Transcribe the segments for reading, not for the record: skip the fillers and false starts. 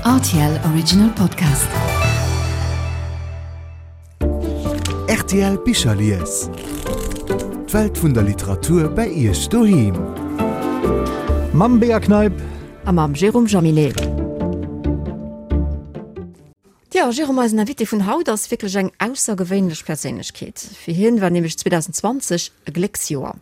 Rtl Original Podcast. Rtl Bicherlies. D'Welt vun der Literatur bei Iech doheem. Mam Bea Kneip. A mam Jérôme Jaminet. Tjo, Jérôme, eisen Invité vun haut ass wierklech eng aussergewéinlech Perséinlechkeet. Fir hien war nämlech 2020 e Glécksjoer.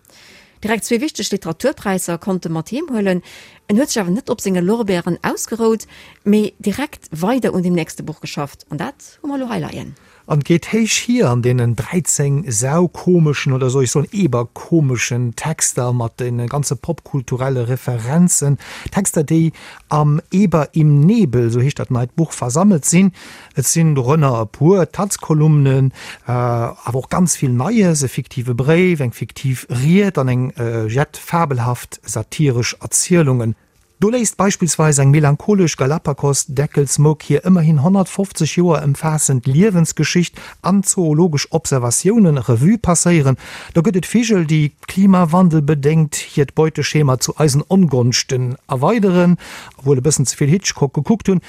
Direkt zwee wichteg Literaturpräisser konnt e mat heem huelen. En huet sech awer net op senge Lorbeeren ausgerout, mee direkt weider un dem nächste Buch geschafft. An dat hu mer elo hei leien. An et geet héich hier an deenen 13 saukomeschen, oder soll ech soen eberkomeschen Texter mat de ganze popkulturelle Referenzen. Texter, déi am Eber im Nebel, sou heescht dat neit Buch, versammelt sinn. Et sinn dorënner e puer Taz-Kolumnen, awer och ganz vill Neies, e fiktive Bréif, eng fiktiv Ried an eng jett fabelhaft satiresch Erzielungen. Do léisst beispillsweis eng melancholesch Galapagos-Deckelsmouk hir ëmmerhin 150 Joer ëmfaassend Liewensgeschicht an zoologesch Observatioune Revue passéieren. Do gëtt et Vigel, déi klimawandelbedéngt hiert Beuteschema zu eisen Ongonschten erweideren, wuel e bëssen ze vill Hitchcock gekuckt hunn.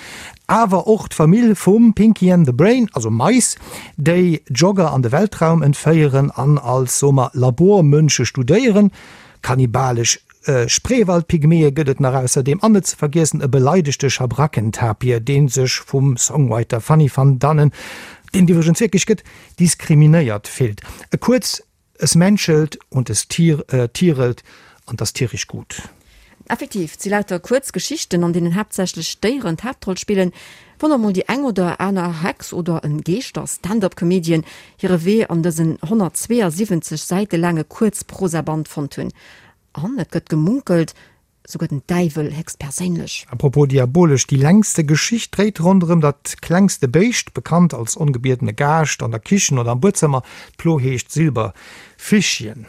Awer och d'Famill vum Pinky and the Brain, also Mais, déi Jogger an de Weltraum entféieren an als, soe mer, Labormënsche studéieren. Kannibalesch Spreewald-Pygmäe gëtt et nach ausserdeem an net ze vergiessen e beleidegte Schabrackentapir, dee sech vum Songwriter Fanny van Dannen, deen et iwwregens wierklech gëtt, diskriminéiert fillt. Kuerz, Es menschelt und es tierelt an 't ass tierisch gut. Effektiv, et si lauter kuerz Geschichten, an deenen haaptsächlech Déieren d'Haaptroll spillen. Wann och mol déi eng oder aner Hex oder en Geeschter-Stand-up-Comedian hire Wee an dësen 172 Säite laange Kuerzprosaband fonnt hunn. An et gëtt gemunkelt, Souguer den Däiwel héchstperséinlech. A propos diabolesch, déi längste Geschicht dréit ronderëm dat klengste Béischt, bekannt als ongebiedene Gaascht an der Kichen oder am Buedzëmmer. D'Plo heescht Silberfischchen.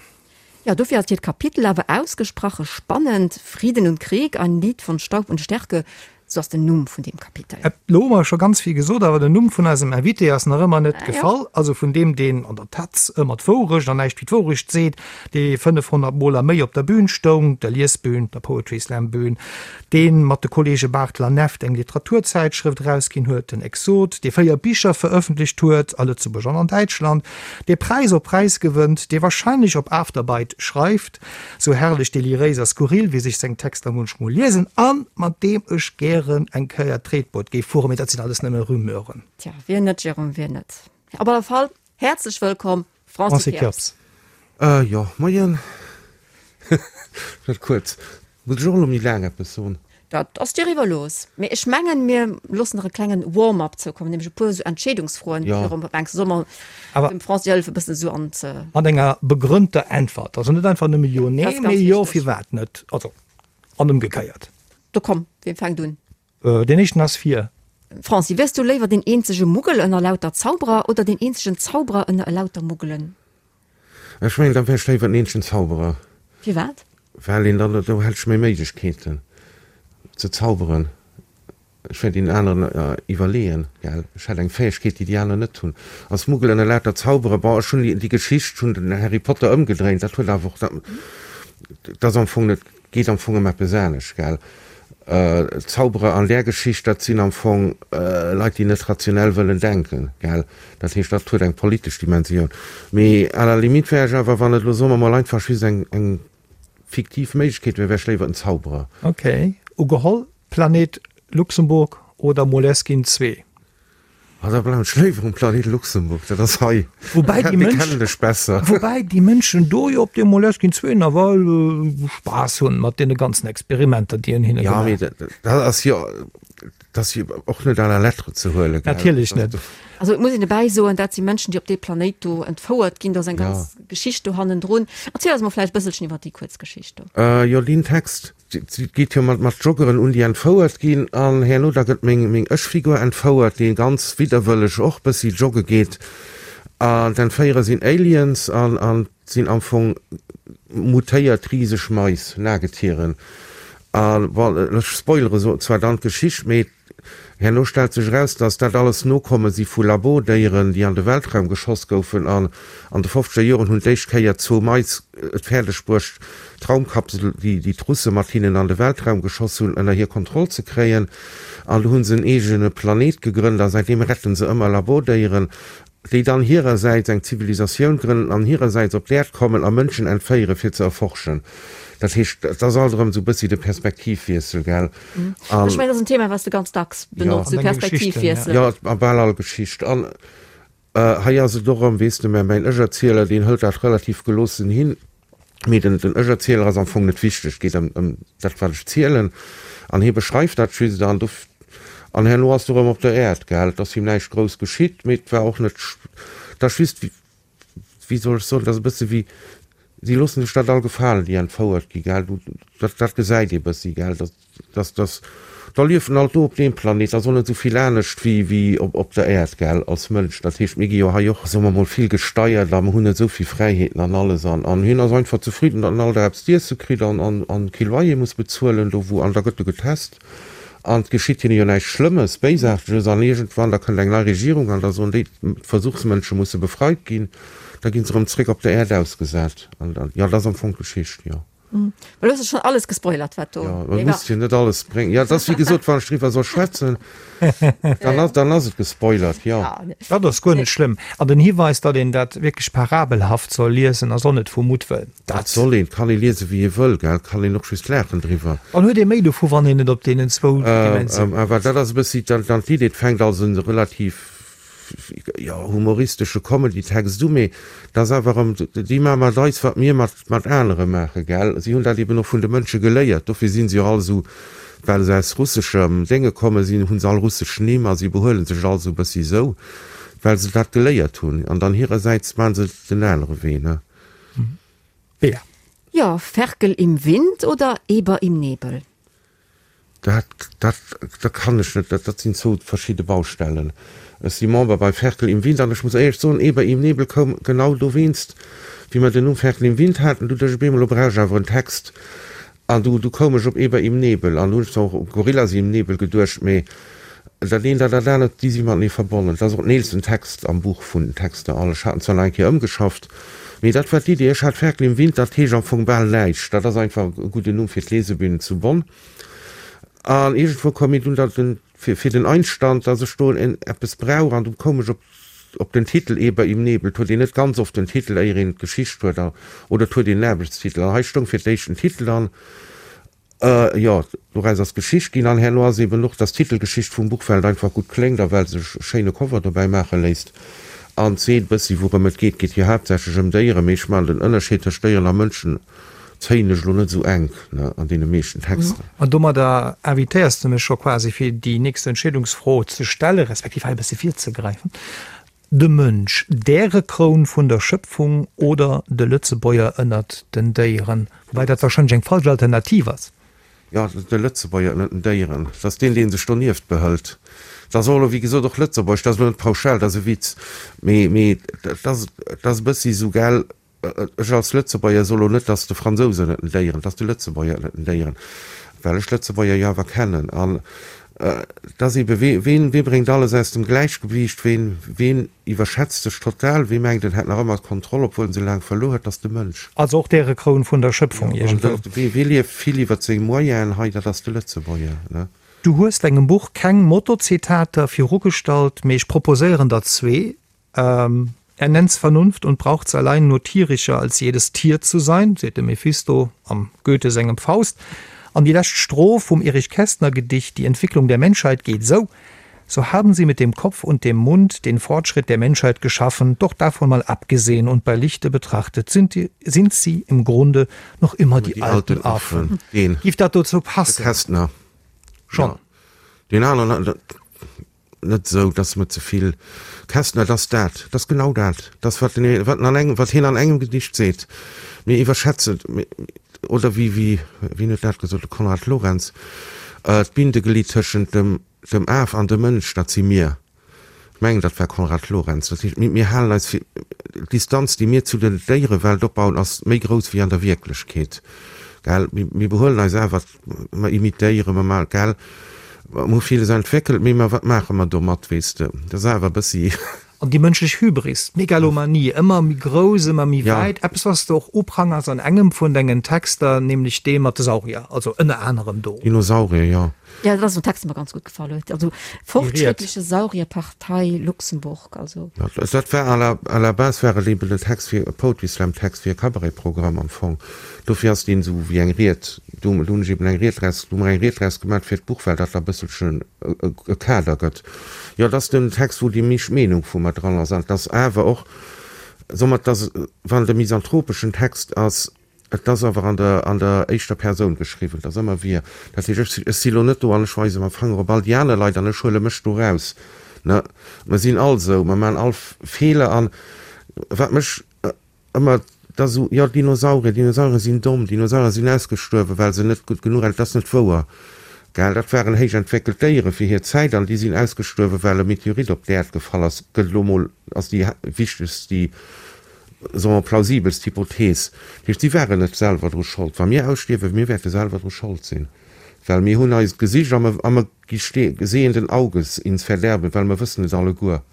Jo, dofir ass hiert Kapitel awer ausgesprache spannend, Frieden und Krieg, ein Lied von Staub und Stärke, sou ass den Numm vun deem Kapitel. Elo hu mer scho ganz vill gesot, awer den Numm vun eisem Invité ass nach ëmmer net gefall. Also vun deem, deen an der Taz ëmmer d'Wourecht an näischt wéi d'Wourecht seet, dee 500 Mol a méi op der Bühn stoung, der Liesbühn, der Poetry Slam Bühn, dee mat de Kollege Barthel an Neft eng Literaturzäitschrëft erausginn huet, den Exot, dee 4 Bicher verëffentlecht huet, a Lëtzebuerg an an Däitschland, dee Präis op Präis gewënnt, dee wahrscheinlech op Afterbite schreift, sou herrlech deliréis a skurril wéi sech seng Texter munchmol liesen, a mat deem ech gären eng Kéier Tretboot géif fueren, mee dat sinn alles nëmme Rumeuren. Tja, wien net, Jérôme, wien net? Op alle Fall, häerzlech wëllkomm, Francis Kirps. Jo, moien. Dat kuerz. Muss ech och elo méi laang eppes soen? Dat ass dir iwwerlooss. Mee ech mengen, mir loossen nach e klengen Warm-up zoukommen, nämlech e puer esou Entscheedungsfroen. Jo. Jérôme, wat mengs du? Solle mer dem Francis hëllefen, e bëssen esou an ze. Mat enger begrënnter Äntwert. Also net einfach nëmme Jo, Nee, mee Jo, firwat net? Also, an ëmgekéiert. Da komm, wien fänkt un? Deen éischten ass fir. Franci, wiers du léiwer deen eenzege Muggel ënner lauter Zauberer oder deen eenzegen Zauberer ënner elauter Muggelen? Ech mengen, da wär ech léiwer den eenzegen Zauberer. Firwat? Well een dann, do hätt ech méi Méiglechkeeten ze zauberen. Ech wär deenen aneren iwwerleeën, gell. Ech hätt eng Fäegkeet, déi déi aner net hunn. Als Muggel ënner lauter Zauberer, bon, ech hunn déi Geschicht, hunn den Harry Potter ëmgedréint, dat huet awer och, dat ass am Fong net, Geet am Fong ëm eppes anescht, gell? Zauberer an där Geschicht, dat sinn am Fong Leit, déi net rationell wëllen denken, gell? Dat heescht, dat huet eng politesch Dimensioun. Mee à la limite wär ech awer, wann et elo, soe mer mol, einfach just eng, eng fiktiv Méiglechkeet wär, wär ech léiwer en Zauberer. Ok, ugeholl, Planet Luxemburg oder Moleskine 2? Ah, da bleiwen ech léiwer um Planet Luxemburg, dat ass hei. Woubäi déi Mënsch, kennen ech besser. Woubäi déi Mënschen do jo op deem Moleskine 2 nawell Spaass hunn mat deene ganzen Experimenter, déi een hinne gemaach. Ja, mee dat ass jo, dat ass jo och net à la lettre ze huelen, gell? Natierlech net. Also et muss een dobäi soen, dat si Mënschen, déi op dee Planéit do entfouert ginn. Do ass eng ganz Geschicht do hannendrun. Erziel eis mol vläicht e bësselchen iwwer déi kuerz Geschicht do. Jo, deen Text, Et geet jo mat mat Joggeren un, déi entfouert ginn, an herno da gëtt meng meng Ech-Figur entfouert, déi ganz widderwëlleg och bëssi jogge geet. An d'Entféierer sinn Aliens an an sinn am Fong mutéiert riseg Mais, Nagetieren. A bon, ech spoilere so zwar dann d'Geschicht, mee Herno stellt sech eraus, datt dat alles Nokomme si vu Labordéieren, déi an de Weltraum geschoss goufen. An an de fofzeger Joren hunn d'éischt Kéier zwou Mais et fäerdeg bruecht, d'Raumkapsel, déi déi d'Russe mat hinnen an de Weltraum geschoss hunn, ënner hir Kontroll ze kréien. An do hu se en eegene Planet gegrënnt a säitdeem retten se ëmmer Labordéieren, déi dann hirersäits eng Zivilisatioun grënnen an hirersäits op d'Äerd kommen a Mënschen entféiere fir ze erforschen. Dat heescht, et ass alt erëm esou e bëssi de Perspektivwiessel, gell? An, Ech mengen, dat ass en Thema, wat s de ganz dacks benotz, de Perspektivwiessel. Jo, a bal all Geschicht. An hei ass et och erëm, weess de, mä mäin Ech-Erzieler, deen hëlt dat relativ geloossen hin. Mee den Ech-Erzieler ass am Fong net wichteg, et geet ëm dat, wat ech zielen. An hie beschreift dat just an do, an herno ass du erëm op der Äerd, gell. Et ass him näischt grouss geschitt, mee et war och net, et ass just, wéi soll ech soen, et ass e bësse wéi, si loosse sech dat all gefalen, déi entfouert gi, gell. Dat, dat gesäit ee bëssi, gell. Dass, dass, da liefen alt do op deem Planet, ass och net esou vill anescht wéi, wéi op, op der Äerd, gell, als Mënsch. Dat heescht, mir gi jo hei och, soe mer mol, vill gesteiert a mer hunn net esou vill Fräiheeten an alles. An, an hien ass einfach zefridden, datt en all Dag eppes z'iesse kritt an, an, an kee Loyer muss bezuelen do wou, an da gëtt e getest an et geschitt hinne jo näischt Schlëmmes, Béisaarteges. An iergendwann, da kënnt eng nei Regierung an da soen déi, d'Versuchsmënsche musse befreit ginn. Da gi se erëm zréck op der Äerd ausgesat. An, an, jo, dat ass am Fong d'Geschicht, jo. Well du hues schon alles gespoilert wat do. Jo, man muss jo net alles bréngen. Jo, et ass wéi gesot, wann ech driwwer soll schwätzen, dann ass, dann ass et gespoilert, jo. Dat ass guer net schlëmm. An den Hiweis, datt een dat wierklech parabelhaft soll liesen, ass och net vu Muttwëll. Dat soll een, kann ee liese wéi ee wëll, gell, kann een och just laachen driwwer. Dann huet ee méi dovu, wann een et op deenen zwou Dimensiounen. Awer dat ass e bëssi dann d'Idee, et fänkt als e relativ jo, humoristesche Comedy-Text u, mee et ass awer erëm, déi maache mat eis, wat mir mat, mat anere maachen, gell. Si hunn dat eben och vun de Mënsche geléiert, dofir si se jo all esou, well se aus russeschem Dénge komme sinn, hu se all russesch Nimm a si behuele sech all esou e bëssi esou, well se dat geléiert hunn. An dann hirersäits maache se den anere Wee, ne. Bea. Jo, Ferkel im Wind oder Eber im Nebel? Dat, dat, dat kann ech net. Dat sinn zwou verschidde Baustellen. Ech si Member bei Ferkel im Wind an ech muss éierlech soen, Eber im Nebel koum genau dowéinst, wéi mer den Numm Ferkel im Wind haten, du duecht ech op eemol, lo brauch ech awer en Text. An du, du koum ech op Eber im Nebel an du hunn ech zwar och u Gorillas im Nebel geduecht, mee dat eent an dat anert, déi si matenee verbonnen. Dat ass och den eelsten Text am Buch vun den Texter all. Ech hat en zwar nach eng Kéier ëmgeschafft, mee dat war d'Idee. Ech hat Ferkel im Wind, dat heescht am Fong bal näischt. Dat ass einfach e gudden Numm fir d'Lesebühn zu Bonn. An iergendwou koum mir dunn da den, fir, fir den Einstand, dass ech do en, eppes brauch. An du koum ech op, op den Titel Eber im Nebel. Et huet een net ganz oft den Titel, éier een d'Geschicht huet, a, oder et huet een en Aarbechtstitel. An hei stoung fir d'éischt den Titel an, Jo, doraus ass Geschicht ginn an herno ass eben och, dass d'Titelgeschicht vum Buch, well et einfach gutt kléngt a well sech e schéine Cover dobäi maache léisst an seet e bëssi wourëm et geet. Et geet jo haaptsächlech ëm Déieren, mee ech maachen den Ënnerscheed tëscht Déieren a Mënschen zéien ech elo net esou enk, ne, an deene meeschten Texter. An domadder invitéiers de mech scho quasi fir déi nächst Entscheedungsfro ze stellen, respektiv hei e bëssi virzegräifen. De Mënsch, d'Ärekroun vun der Schëpfung oder de Lëtzebuerger ënnert den Déieren? Woubäi dat warscheinlech eng falsch Alternativ ass. Jo, de Lëtzebuerger ënnert den Déieren, dat ass deen, dee sech donieft behëlt. Dat ass och elo, wéi gesot, och Lëtzebuerg, dat ass elo net pauschal, dat ass e Witz, mee, mee dat ass, dat ass e bëssi esou, gell, Ech als Lëtzebuerger soe lo net, dass de Fransous ënnert den Déieren, dass de Lëtzebuerger ënnert den Déieren, well ech d'Lëtzebuerger jo awer kennen. An et ass ebe, wee, ween, wee bréngt alles aus dem Gläichgewiicht, ween, ween iwwerschätzt sech total, wee mengt, en hätt nach ëmmer d'Kontroll, obwuel en se laang verluer huet, dat ass de Mënsch. Also och d'Ärekroun vun der Schëpfung iergendwou. Wee, wee lieft vill iwwert seng Moyenen hei, dat ass de Lëtzebuerger, ne? Du hues dengem Buch keng Motto-Zitater virugestallt, mee ech proposéieren der zwee. Er nennt's Vernunft und braucht's allein nur tierischer als jedes Tier zu sein, seet de Mephisto am Goethe sengem Faust. An déi lescht Stroph vum Erich Kästner Gedicht Die Entwicklung der Menschheit geet esou, So haben sie mit dem Kopf und dem Mund den Fortschritt der Menschheit geschaffen, doch davon mal abgesehen und bei Lichte betrachtet sind, die, sind sie im Grunde noch immer die, die alten Affen. Deen. Giff dat dozou passen? De Kästner. Schon. Ja. Deen aneren. Net esou, dass mer ze vill. Kästner, Et ass dat, et ass genau dat, et ass wat en, wat en an engem, wat hien an engem Gedicht seet. Mir iwwerschätzen, oder wéi, wéi, wien huet dat gesot, de Konrad Lorenz, d'Bindeglied tëschent dem, dem Af an dem Mënsch, dat si mir. Ech mengen, dat war Konrad Lorenz. Dat heescht, mir, mir halen eis fir, d'Distanz, déi mir zu der Déierewelt opbauen, ass méi grouss wéi an der Wierklechkeet. Gell? Mir, mir behuelen eis awer Mer imitéieren, mer maachen, gell, mer hu villes entwéckelt, mee mer, wat maache mer domat, weess de? Dat ass awer e bëssi. An déi mënschlech Hybris, d'Megalomanie, ëmmer méi grouss, ëmmer méi wäit, eppes wat s de och uprangers an engem vun dengen Texter, nämlech dee mat de Saurier, also ënner anerem do. Dinosaurier, jo. Jo, dat ass en Text, dee mer ganz gutt gefall huet. Also Fortschrittliche Saurierpartei Luxemburg, also. Dat war à la, à la base war et eben en Text fir, e Poetry Slam Text fir e Cabaret-Programm am Fong. Dofir ass deen esou wéi eng Ried, do, do hunn ech eben eng Ried draus, do hu mer eng Ried draus gemat fir d'Buch, well dat da e bësselchen e Kader gëtt. Jo, et ass den Text, wou déi meescht Meenung vu mer dran ass. An et ass awer och, soe mer, et ass, wann et e misanthropeschen Text ass, et ass awer an der, an der éischter Persoun geschriwwen, et ass ëmmer wir. Dat heescht, ech, ech si lo net do an ech weise mam Fanger op all déi aner Leit an ech huele mech do raus. Ne, mer sinn all esou, mer maachen all Feeler. An wat mech Ëmmer da sou, jo Dinosaurier, Dinosaurier sinn domm, Dinosaurier sinn ausgestuerwen, well se net gutt genuch, dat ass net wouer, gell, dat waren héich entwéckelt Déiere fir hir Zäit an déi sinn ausgestuerwen, well e Meteorit op d'Äerd gefall ass, gëtt elo mol als déi wichtegst, déi, soe mer, plausibelst Hypothees. Dat heescht, si waren net selwer dru Schold. Wa mir ausstierwen, mir wäerte selwer dru Schold sinn, well mir hunn eis gesicht a mer gi sehenden Auges ins Verderben, well mer wëssen et alleguer.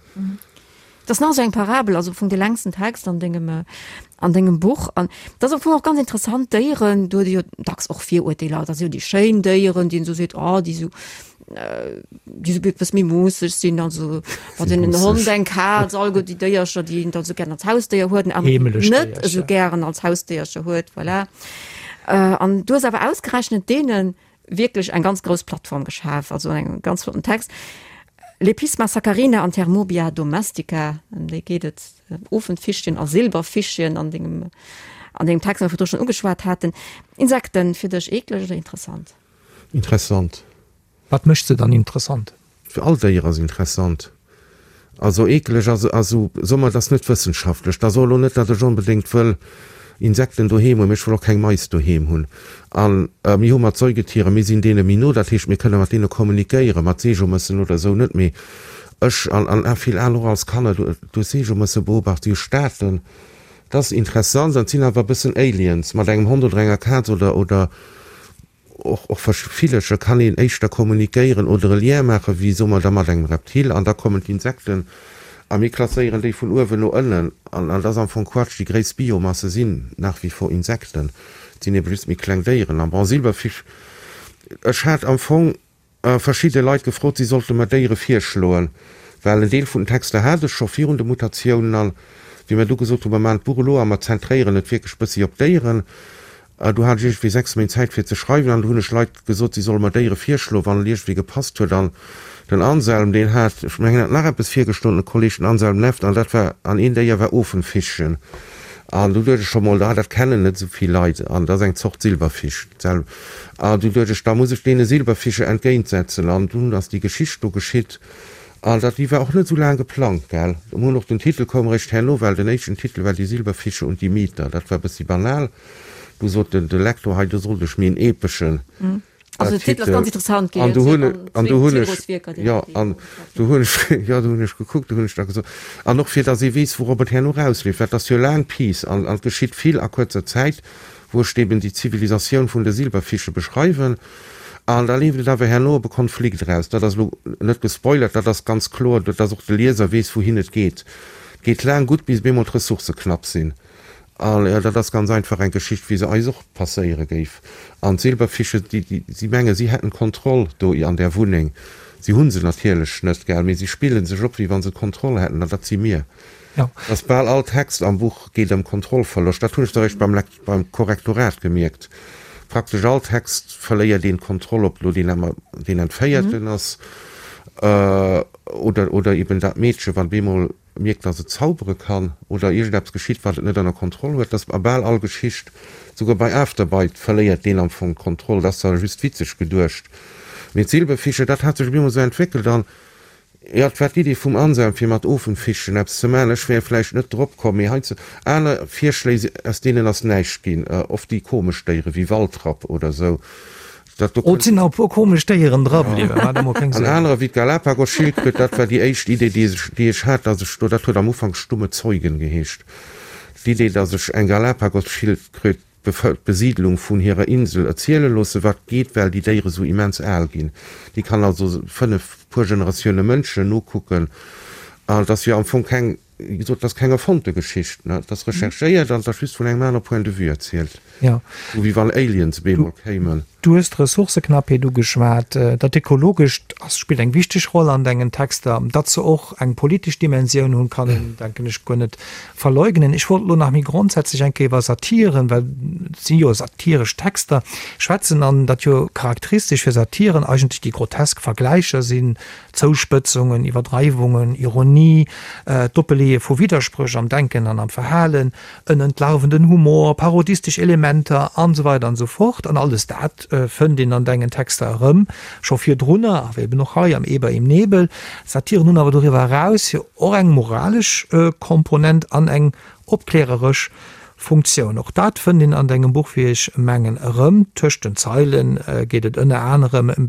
Dat ass nach esou eng Parabel, also am Fong dee längsten Text an dengem, an dengem Buch. An dat ass am Fong och ganz interessant, Déieren, do huet ee jo dacks och Virurteeler, dat si jo déi schéin Déieren, déi een esou seet, oh déi esou, déi esou eppes méi moosseg sinn, also wann een en Hond, eng Kaz, alleguer déi Déiercher, déi een da esou gären als Hausdéier huet, an aner net esou gären als Hausdéiercher huet, voilà. An du hues awer ausgerechnet deenen wierklech eng ganz grouss Plattform geschaf, also en ganz flotten Text. Lepisma saccharina an Thermobia domestica, ëm déi geet et, Ofenfischchen a Silberfischchen an dengem, an dengem Text, dee mer virdru schonn ugeschwat haten. Insekten, fir dech eekleg oder interessant? Interessant. Wat mécht se dann interessant? Fir all Déier ass interessant. Also eekeleg ass, also soe mer, et ass net wëssenschaftlech. Da soe elo net, datt ech onbedéngt wëll Insekten doheem hunn, mee ech wëll och keng Mais doheem hunn. A mir hu mat Säugetieren, mir sinn deene méi no, dat heescht, mir kënne mat deene kommunikéieren, mat Seejomëssen oder esou net. Mee ech an an vill aner och als Kanner, du hues Seejomësse beobacht, si hu Staaten, dat ass interessant an et sinn awer e bëssen Aliens mat engem Hond oder enger Kaz oder oder Och och Villercher kann een éischter kommunikéieren oder e Lien maachen, wéi soe mer da mat engem Reptil. An da kommen d'Insekten a mir klasséieren déi vun uewen no ënnen. An dat ass am Fong Quatsch. Déi gréisst Biomasse sinn nach wie vor Insekten. Et sinn ebe just méi kleng Déieren. An bon, Silberfisch, ech hat am Fong verschidde Leit gefrot, si sollte mer Déiere virschloen, well en Deel vun den Texter hat ech scho virun de Mutatiounen. An wéi mer du gesot hunn, mer maachen d'Buch elo a mer zentréieren et wierklech bëssi op d'Déieren, Du hat ech iergendwéi 6 Méint Zäit fir ze schreiwen an du hunn ech Leit gesot, si solle mer Déiere virschloen, wann et iergendwéi gepasst huet. An den Anselm, deen hat, ech mengen, hat nach eppes virgeschloen, de Kolleg, den Anselm Neft, an dat war, an een Déier war Ofenfischchen. An du duecht ech scho mol, ah, dat kennen net esou vill Leit an dat ass eng Zort Silberfisch. An du duecht ech, da muss ech deene Silberfische entgéintsetzen. An dunn ass déi Geschicht do geschitt. An dat, déi war och net esou laang geplangt, gell. Mir hunn och, den Titel koum eréischt herno, well den éischten Titel war Die Silberfische und die Mieter. Dat war e bëssi banal. Du sot den, de Lektor, hei, do sollt ech méi en epeschen Also den Titel ass ganz interessant ginn. An du hunn, an du hunn ech, jo, an du hunn ech, jo, du hunn ech gekuckt, du hunn ech da gesot, an och fir datt ee weess, wourop et herno erausleeft, well et ass jo laang Piece an, an et geschitt vill a kuerzer Zäit, wou ech eben déi Zivilisatioun vun de Silberfische beschreiwen. An da leeft et awer herno op e Konflikt eraus. Dat ass elo net gespoilert, dat ass ganz kloer, datt och de Lieser weess, wouhin et geet. Et geet laang gutt, bis op eemol d'Ressourcë knapp sinn. An dat ass ganz einfach eng Geschicht, wéi se eis och passéiere géif. An d'Silberfische, déi, déi, si menge si hätten d'Kontroll do an där Wunneng. Si hu se natierlech net, gell, mee si spille sech op, wéi wa se d'Kontroll hätten. An dat si mir. Dass bal all Text am Buch geet ëm Kontrollverloscht, dat hunn ech da eréischt beim beim Korrektorat gemierkt. Praktesch all Text verléiert een d'Kontroll, ob elo deen emmer deen Entféierten ass oder oder eben dat Meedche wat op eemol mierkt, dass et zaubere kann oder iergendeppes geschitt, wat et net ënner Kontroll huet. Dass a bal all Geschicht, souguer bei Afterbite verléiert deen am Fong d'Kontroll. Dat ass zwar just witzeg geduecht, mee d'Silberfische, dat hat sech op eemol esou entwéckelt an Jo, et war d'Idee vum Anselm fir mat Ofenfichen eppes ze maachen. Ech wär vläicht net drop komm, mee hei ze aner Virschléi, aus deenen ass näischt ginn. Oft déi komesch Déiere wéi Waldrapp oder sou. Dat do Oh, et sinn nach e puer komesch Déieren dra bliwwen, maacht der mol keng An Suergen. anerer wéi d'Galapagos-Schildkröt, dat war déi éischt Idee, déi ech, déi ech hat, dass ech do, dat huet am Ufank Stumme Zeugen geheescht, d'Idee, dass ech eng Galapagos-Schildkröt d'Besiidlung vun hirer Insel erziele loossen, wat geet, well déi Déiere sou immens al ginn. Déi kann also 5 puer Generatioune Mënschen nokucken. An et ass jo am Fong keng, wéi gesot, et ass keng erfonnte Geschicht, ne? Et ass recherchéiert an et ass just vun engem anere Point de vue erzielt. Jo. Sou wéi wann Aliens op eemol kéimen. Du hues d'Ressourcëknappheet ugeschwat. Dat Ökologescht ass, spillt eng wichteg Roll an dengen Texter. Datt se och eng politesch Dimensioun hunn, kann een, denken ech, guer net verleugnen. Ech wollt elo nach méi grondsätzlech eng Kéier iwwer Satiren, well et si jo satiresch Texter, schwätzen an datt jo charakteristesch fir Satiren eigentlech déi grotesk Vergläicher sinn, Zouspëtzungen, Iwwerdreiwungen, Ironie, d'Oppeleeë vu Widderspréch am Denken an am Verhalen, en entlarvenden Humor, parodistesch Elementer an esou weider an esou fort. An alles dat fënnt een an dengen Texter erëm, scho virdrunner, awer eben och hei am Eber im Nebel. Satiren hunn awer doriwwer eraus jo och eng moralesch Komponent an eng opkläreresch Funktioun. Och dat fënnt een an dengem Buch, wéi ech mengen, erëm. Tëscht den Zeile geet et ënner anerem ëm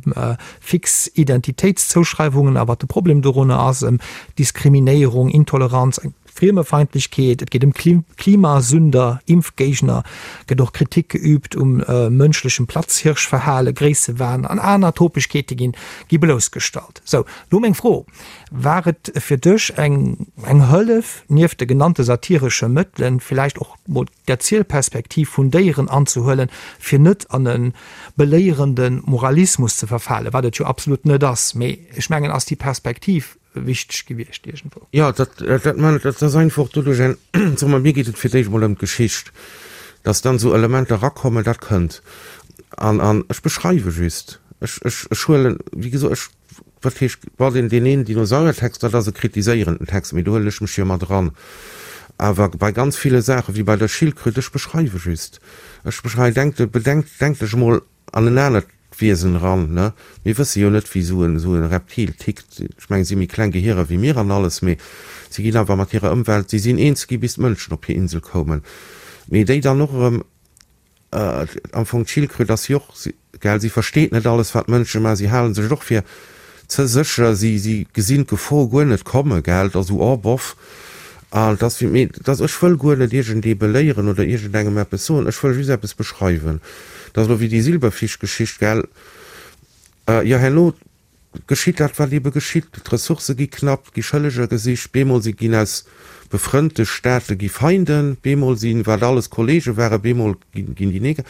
fix Identitéitszouschreiwungen a wat de Problem dorunner ass, ëm Diskriminéierung, Intoleranz, eng Friemefeindlechkeet, et geet ëm Klimasünder, Impfgéigner, gëtt och Kritik geüübt um mënschlechem Platzhirschverhale, Gréissewahn an aner Topegkeete ginn gi bloussgestallt. Sou, lo meng Fro, War et fir dech eng eng Hëllef, nieft de genannte satiresche Mëttelen, villäicht och mol d'Erzielperspektiv vun Déieren anzehuelen, fir net an e beléierende Moralismus ze verfalen, wat et jo absolut net ass, mee ech mengen, ass déi Perspektiv wichteg gewiescht iergendwou? Jo, dat, dat man, dat ass einfach doduerch eng, soe mer, mir geet et fir d'éischt emol ëm d'Geschicht, dass dann esou Elementer erakommen, dat kënnt. An, an ech beschreiwe just, ech, ech, ech huelen, wéi gesot, ech Wat heescht, bon, deen, deen een Dinosauriertext, dat ass e kritiséierenden Text, mee do huelen ech mech jo mat eran. Awer bei ganz ville Saachen, wéi bei der Schildkröt, ech beschreiwe just. Ech beschreiwen, denk, bedenk, denk dech emol an en anert Wiesen eran, ne? Mir wësse jo net, wéi esou en, esou e Reptil tickt. Ech mengen, si hu méi kleng Gehierer wéi mir an alles, mee si ginn awer mat hirer Ëmwelt, si sinn eens gi bis d'Mënschen op hir Insel koumen. Mee déi dann och erëm Am Fong d'Schildkröt ass jo och, gell, si versteet net alles wat d'Mënsche maachen, si halen sech och fir ze sécher, si si gesinn d'Gefor guer net komme, gell, et ass esou, oh boff. An et ass wéi, mee et ass, ech wëll guer net iergendee beléieren oder iergendengem eppes soen, ech wëll just eppes beschreiwen. Et ass elo wéi déi Silberfischgeschicht, gell, jo herno Geschitt dat, wat ebe geschitt, d'Ressourcë gi knapp, et gi Schëlleger gesicht, bemol si ginn aus befrënnte Staate gi Feinden, bemol si wat alles Kollege waren, bemol ginn déi neg.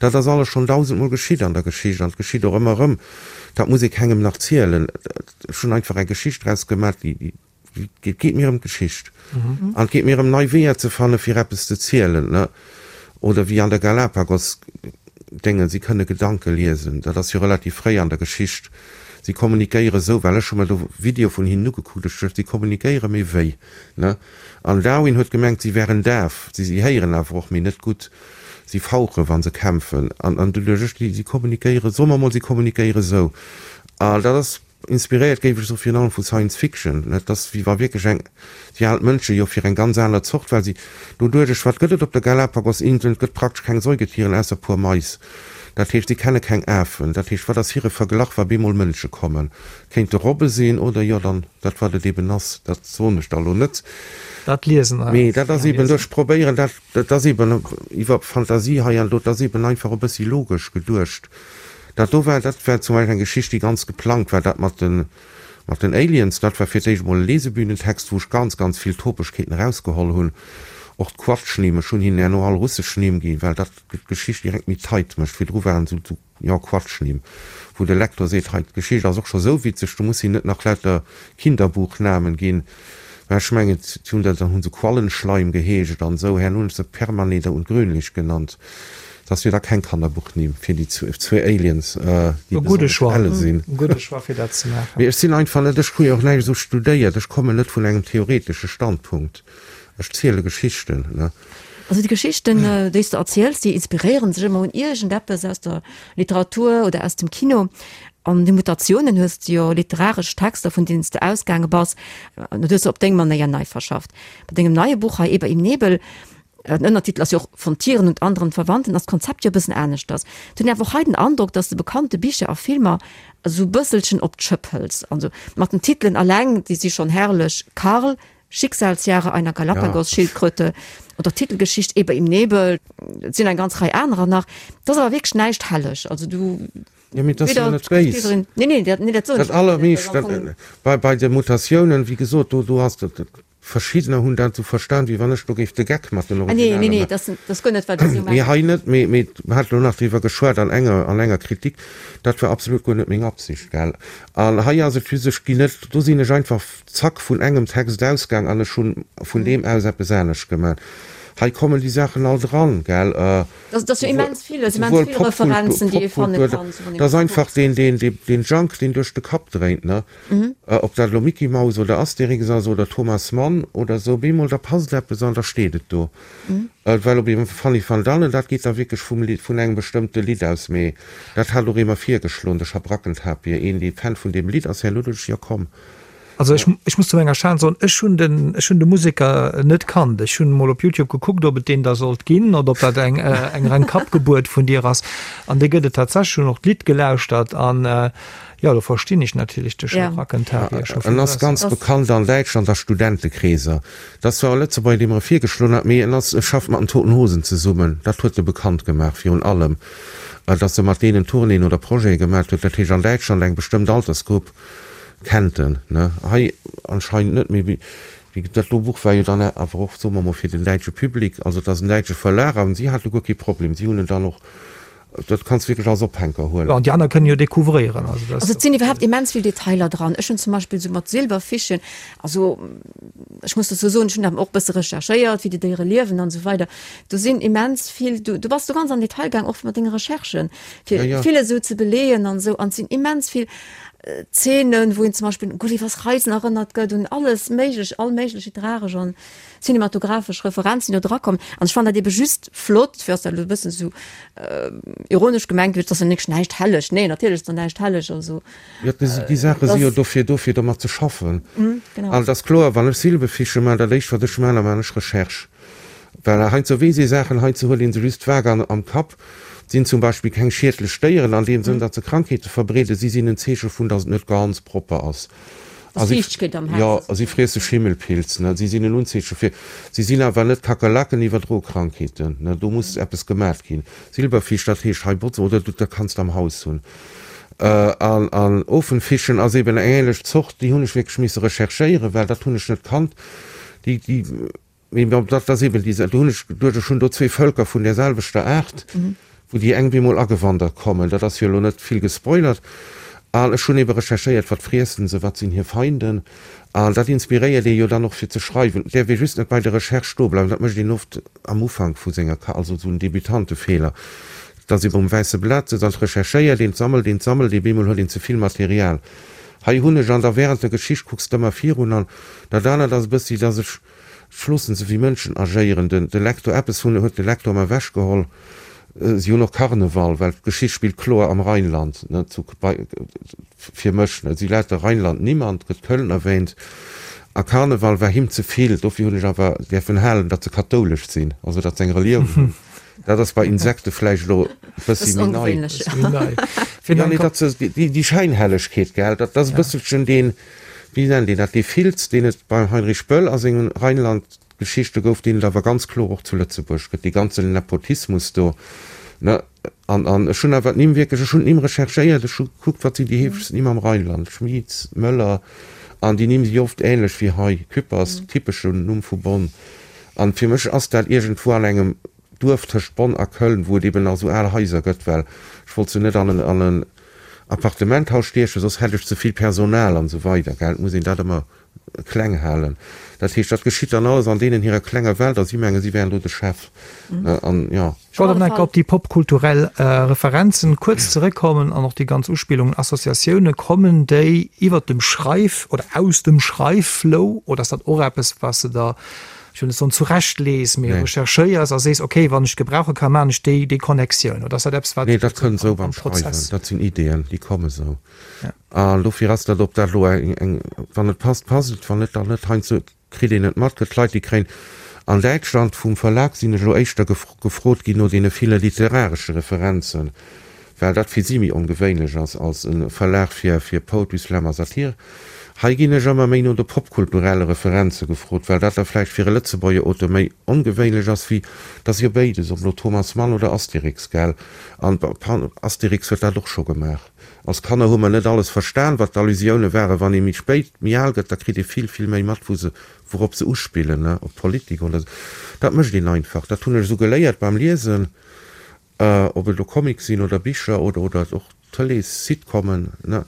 Dat ass alles schonn dausendmol geschitt an der Geschicht an et geschitt och ëmmer erëm. Dat muss ee kengem nach zielen. Ech hunn einfach eng Geschicht draus gemaach, déi Et geet mir ëm d'Geschicht. An et geet mir ëm nei Weeër ze fanne fir eppes ze zielen, ne? Oder wéi an der Galapagos Déngen, si kënne Gedanke liesen. Dat ass jo relativ fréi an der Geschicht. Si kommunikéiere sou, well ech hu mer do Videoe vun hinnen ugekuckt, ech duecht, si kommunikéiere, mee wéi, ne? An Darwin huet gemengt, si wären daf. Si si héieren awer och, mee net gutt. Si fauchen, wa se kämpfen. An an du duecht ech, si kommunikéiere, soe mer mol, si kommunikéiere sou. A dat ass. Inspiréiert géif ech soe virun allem vu Science Fiction. Et ass wéi wa wierklech eng, si halen d'Mënsche jo fir eng ganz aner Zort, well si doduerch, wat gëtt et op de Galapagos-Inseln? Et gëtt praktesch keng Säugetieren ausser puer Mais. Dat heescht, si kenne keng Afen. Dat heescht, wat ass hire Verglach, wa bemol Mënsche kommen? Kéinte Robbe sinn oder jo dann dat wat et eben ass, dat soen ech da lo net. Dat liesen eis. Mee dat ass eben, ech probéieren dat, dat ass eben iwwer Fantasie hei an do, dat ass eben einfach e bëssi logesch geduecht. Dat do war, dat war zum Beispill eng Geschicht, déi ganz geplangt war, dat mat de, mat den Aliens. Dat war fir d'éischt emol e Lesebühnentext, wou ech ganz, ganz vill Topegkeeten erausgeholl hunn. Och d'Quatschnimm, ech hunn hinnen herno all russesch Nimm ginn, well dat d'Geschicht direkt méi tight mécht. Virdru waren esou, esou, jo, Quatschnimm, wou de Lektor seet, hei, d'Geschicht ass och scho sou witzeg, du muss hinnen net nach lauter Kinderbuchnamen ginn. Mä ech mengen, si hunn dat, dann hu se Quallenschleim geheescht an esou. Herno hunn ech se Permaneder und Grünlich genannt. Dat ass jo da keng Kannerbuchnimm fir déi zwee Aliens, déi E gudde besonnesch Choix, elle sinn. e gudde Choix fir dat ze maachen. Mee ech sinn einfach net, ech hu jo och näischt esou studéiert, ech kommen net vun engem theoretesche Standpunkt. Ech ziele Geschichten, ne. Also déi Geschichten, déi s de erziels, déi inspiréieren sech ëmmer un iergendeppes aus der Literatur oder aus dem Kino. An de Mutatiounen hues de jo literaresch Texter, vun deenen s de ausgaange bass, an dat hues de op deng Manéier nei verschafft. Bei dengem neie Buch hei, Eber im Nebel, den Ënnertitel ass jo och Von Tieren und anderen Verwandten, ass d'Konzept jo e bëssen aneschters. Et hunn awer och hei den Androck, dass de bekannte Bicher a Filmer esou e bësselchen op d'Schëpp hëls. Also mat den Titelen alleng, déi si schonn herrlech, Karl, Schicksalsjahre einer Galapagos-Schildkröte oder Titelgeschicht Eber im Nebel, et sinn eng ganz Rei anerer nach. Et ass awer wierklech näischt helleg. Also du. Jo, mee dat ass jo net béis. Nee, nee, dat, nee, dat soen ech net. Dat allermeescht, dat, bei, bei de Mutatiounen, wéi gesot, do, do ass dat, verschiddener hunn dat esou verstan, wéi wann ech do géif de Geck mat den Ah, nee, Originalen nee, nee, maachen. dat ass, dat ass guer net, wat ech esou Mee mengen. hei net, mee, mee mer hate lo nach driwwer geschwat an enger, an enger Kritik, dat war absolut guer net meng Absicht, gell. An hei ass et just, ech ginn net, do sinn ech einfach zack vun engem Text ausgaang an ech hunn vun deem aus eppes anescht gemaach. Hei kommen déi Saachen all dran, gell. Dat ass jo immens vill, immens vill Referenzen, déi ee fanne kann. Dat ass einfach deen, deen, deen Junk, deen duerch de Kapp dréint, ne. Ob dat elo Micky Maus oder Astérix ass oder Thomas Mann oder esou, bemol da passt eppes an da steet et do. Well op eemol Fanny van Dannen, dat geet da wierklech vum Lidd, vun engem bestëmmte Lidd aus, mee dat hat och ee mer virgeschloen, de Schabrackentapir, een dee Fan vun deem Lidd ass, herno duecht ech, jo komm. Also ech, ech muss zu menger Schan soen, ech hunn den, ech hunn de Museker net kannt. Ech hunn emol op Youtube gekuckt, ob et deen da sollt ginn oder ob dat eng, eng reng Kappgebuert vun dir ass. An dee gëtt et tatsächlech. Hunn och d'Lidd gelauschtert an, jo, do verstinn ech natierlech de Schabrackentapir scho En vill ass besser. ganz bekannt an Däitschland a Studentekreeser. Dat ass zwar e Lëtzebuerger, dee mer e virgeschloen hat, mee en ass, e schafft mat den Toten Hosen zesummen. Dat huet e bekannt gemaach virun allem, datt e mat deenen Tournéeën oder Projete gemaat huet. Dat heescht an Däitschland eng bestëmmt Altersgrupp Kennt en, ne? Hei anscheinend net, mee wéi dat do Buch war jo dann awer och, soe mer mol, fir den däitsche Public, also et ass en däitsche Verlag an si hate guer kee Problem, si hunn en dann och, dat kanns de wierklech als Ophänker huelen. Jo, an déi aner kënnen jo découvréieren, also dat. Also et sinn iwwerhaapt immens vill Detailer dran. Ech hunn zum Beispill esou mat Silberfischen, also ech muss dozou soen, ech hunn awer och e bësse recherchéiert, wéi déi Déiere liewen an esou weider. Do sinn immens vill, du du bass do ganz am Detail gaang, och mat denge Recherchen, fir vill esou ze beleeën an esou, an et sinn immens vill Zeenen, wou een zum Beispill un Gullivers Reisen erënnert gëtt, un alles méiglech, all méiglech literaresch an cinematographesch Referenzen, déi do drakommen. An ech fannen dat ebe just flott, fir ass dat elo e bëssen esou ironesch gemengt, et ass jo nächst näischt helleg. Nee, natierlech ass do näischt helleg, also. Jo, déi Saache si jo dofir do, fir domat ze schaffen. Genau. An et ass kloer, wann ech Silbefiche maachen, dat éischt wat ech maachen, da maachen ech Recherche. Well heiansdo weess ee Saachen, heiansdo huet ee se just vag am Kapp. Sinn zum Beispill keng schiedlech Déieren an deem Sënn, datt se Krankheete verbreeden. Si sinn en Zeeche vun, datt et net ganz propper ass. Dass Fiichtegkeet am Haus Jo, ass. si friesse Schimmelpilz, ne. Si sinn en Unzeeche fir. Si sinn awer net Kakerlaken, iwwerdroe Krankheeten, ne. Do muss eppes gemat ginn. Silberfisch, dat heescht hei botzen, oder du, dat kanns de am Haus hunn. An, an Ofenfischen ass eben eng ähnlech Zort, déi hunn ech wierklech misse recherchéieren, well dat hunn ech net kannt. Déi, déi. Mee bon, dat ass eben déi, do hunn ech geduecht, ech hunn do zwee Vëlker vun där selwechter Aart, wou déi eng bemol agewandert kommen. Dat ass jo elo net vill gespoilert. An ech hunn ebe recherchéiert, wat friessen se, wat sinn hir Feinden. An dat inspiréiert ee jo dann och fir ze schreiwen. Et däerf ee just net bei der Recherche stoe bleiwen, dat mécht een oft am Ufank vu senger Ka, also esou en Debutantefeeler, dass ee um wäisse Blat sëtzt an et recherchéiert een, et sammelt een, et sammelt ee, bemol huet een ze vill Material. Hei hunn ech, an da während der Geschicht kucks de ëmmer virun. An dat anert ass e bëssi, dass ech, Ech loossen se wéi Mënschen agéieren. Den de Lektor, eppes hunn huet de Lektor mer ewechgeholl, si hunn och Karneval, well d'Geschicht spillt kloer am Rheinland, ne, zu bei fir mech, ne, si lauter Rheinland Nimm an et gëtt Köln erwähnt a Karneval war him ze vill. Dofir hunn ech awer däerfen halen, datt se kathoulesch sinn, also datt se eng Relioun hunn. Dat ass bei Insekte vläicht elo e bëssi méi nei. Jo, nee, datt se déi déi Schäinhellegkeet, gell, dat ass e bësselchen deen. Wéi nennt een dat, dee Filz, deen et beim Heinrich Böll a sengen Rheinland-Geschichte gouf, deen et awer ganz kloer och zu Lëtzebuerg gëtt, dee ganzen Nepotismus do, ne? An, an ech hunn awer d'Nimm wierklech, ech hunn d'Nimm recherchéiert, ech hu gekuckt, wat sinn déi heefegsten Nimm am Rheinland, Schmit, Möller, an déi Nimm si oft ähnlech wéi hei, Küppers, typeschen Numm vu Bonn. An fir mech ass dat iergendwou an engem Duerf tëscht Bonn a Köln, wou et eben nach esou al Haiser gëtt, well ech wollt se net an en, an en Appartementhaus stiechen, soss hätt ech ze vill Personal an esou weider, gell. Et muss een dat ëmmer kleng halen. Dat heescht, dat geschitt dann alles an deenen hirer klenger Welt a si mengen, si wären do de Chef, ne, an jo. Ech wollt awer nach eng Kéier op déi popkulturell Referenzen kuerz zeréckkommen an och déi ganz Uspillungen, Associatioune. Kommen déi iwwert dem Schreif oder aus dem Schreifflow oder ass dat och eppes, wat s de der ech wëll net soen zurechtlees, mee recherchéiers a sees, okay, wann ech gebrauche kann, maachen ech déi, déi Connectioun? Oder ass dat eppes, wat Nee, dat kënnt esou am beim Schreiwen. Prozess? Dat sinn Ideeën, déi komme sou. An dofir ass dat, ob dat elo eng, eng, wann et passt, passt et, wann net, dann net. Heiansdo kritt een et mat, gëtt Leit, déi kréien, an Däitschland vum Verlag sinn ech elo éischter gefrot ginn no deene ville literaresche Referenzen, well dat fir si méi ongewéinlech ass als e Verlag fir, fir Poetry Slam a Satire. Hei ginn ech ëmmer méi no de popkulturelle Referenze gefrot, well dat da vläicht fir e Lëtzebuerger Auteur méi ongewéinlech ass wéi, 't ass jo béides, ob elo Thomas Mann oder Astérix, gell? An Astérix huet dat och scho gemaach. Als Kanner hu mer net alles verstan, wat d'Allusioune waren. Wann ee méi spéit, méi al gëtt, da kritt ee vill, vill méi mat, wou se, wourop se uspillen, ne, op Politik oder esou. Dat mécht een einfach. Dat hunn ech esou geléiert beim Liesen. Ob et elo Comics sinn oder Bicher oder oder och Tëlees-Sitcomen, ne,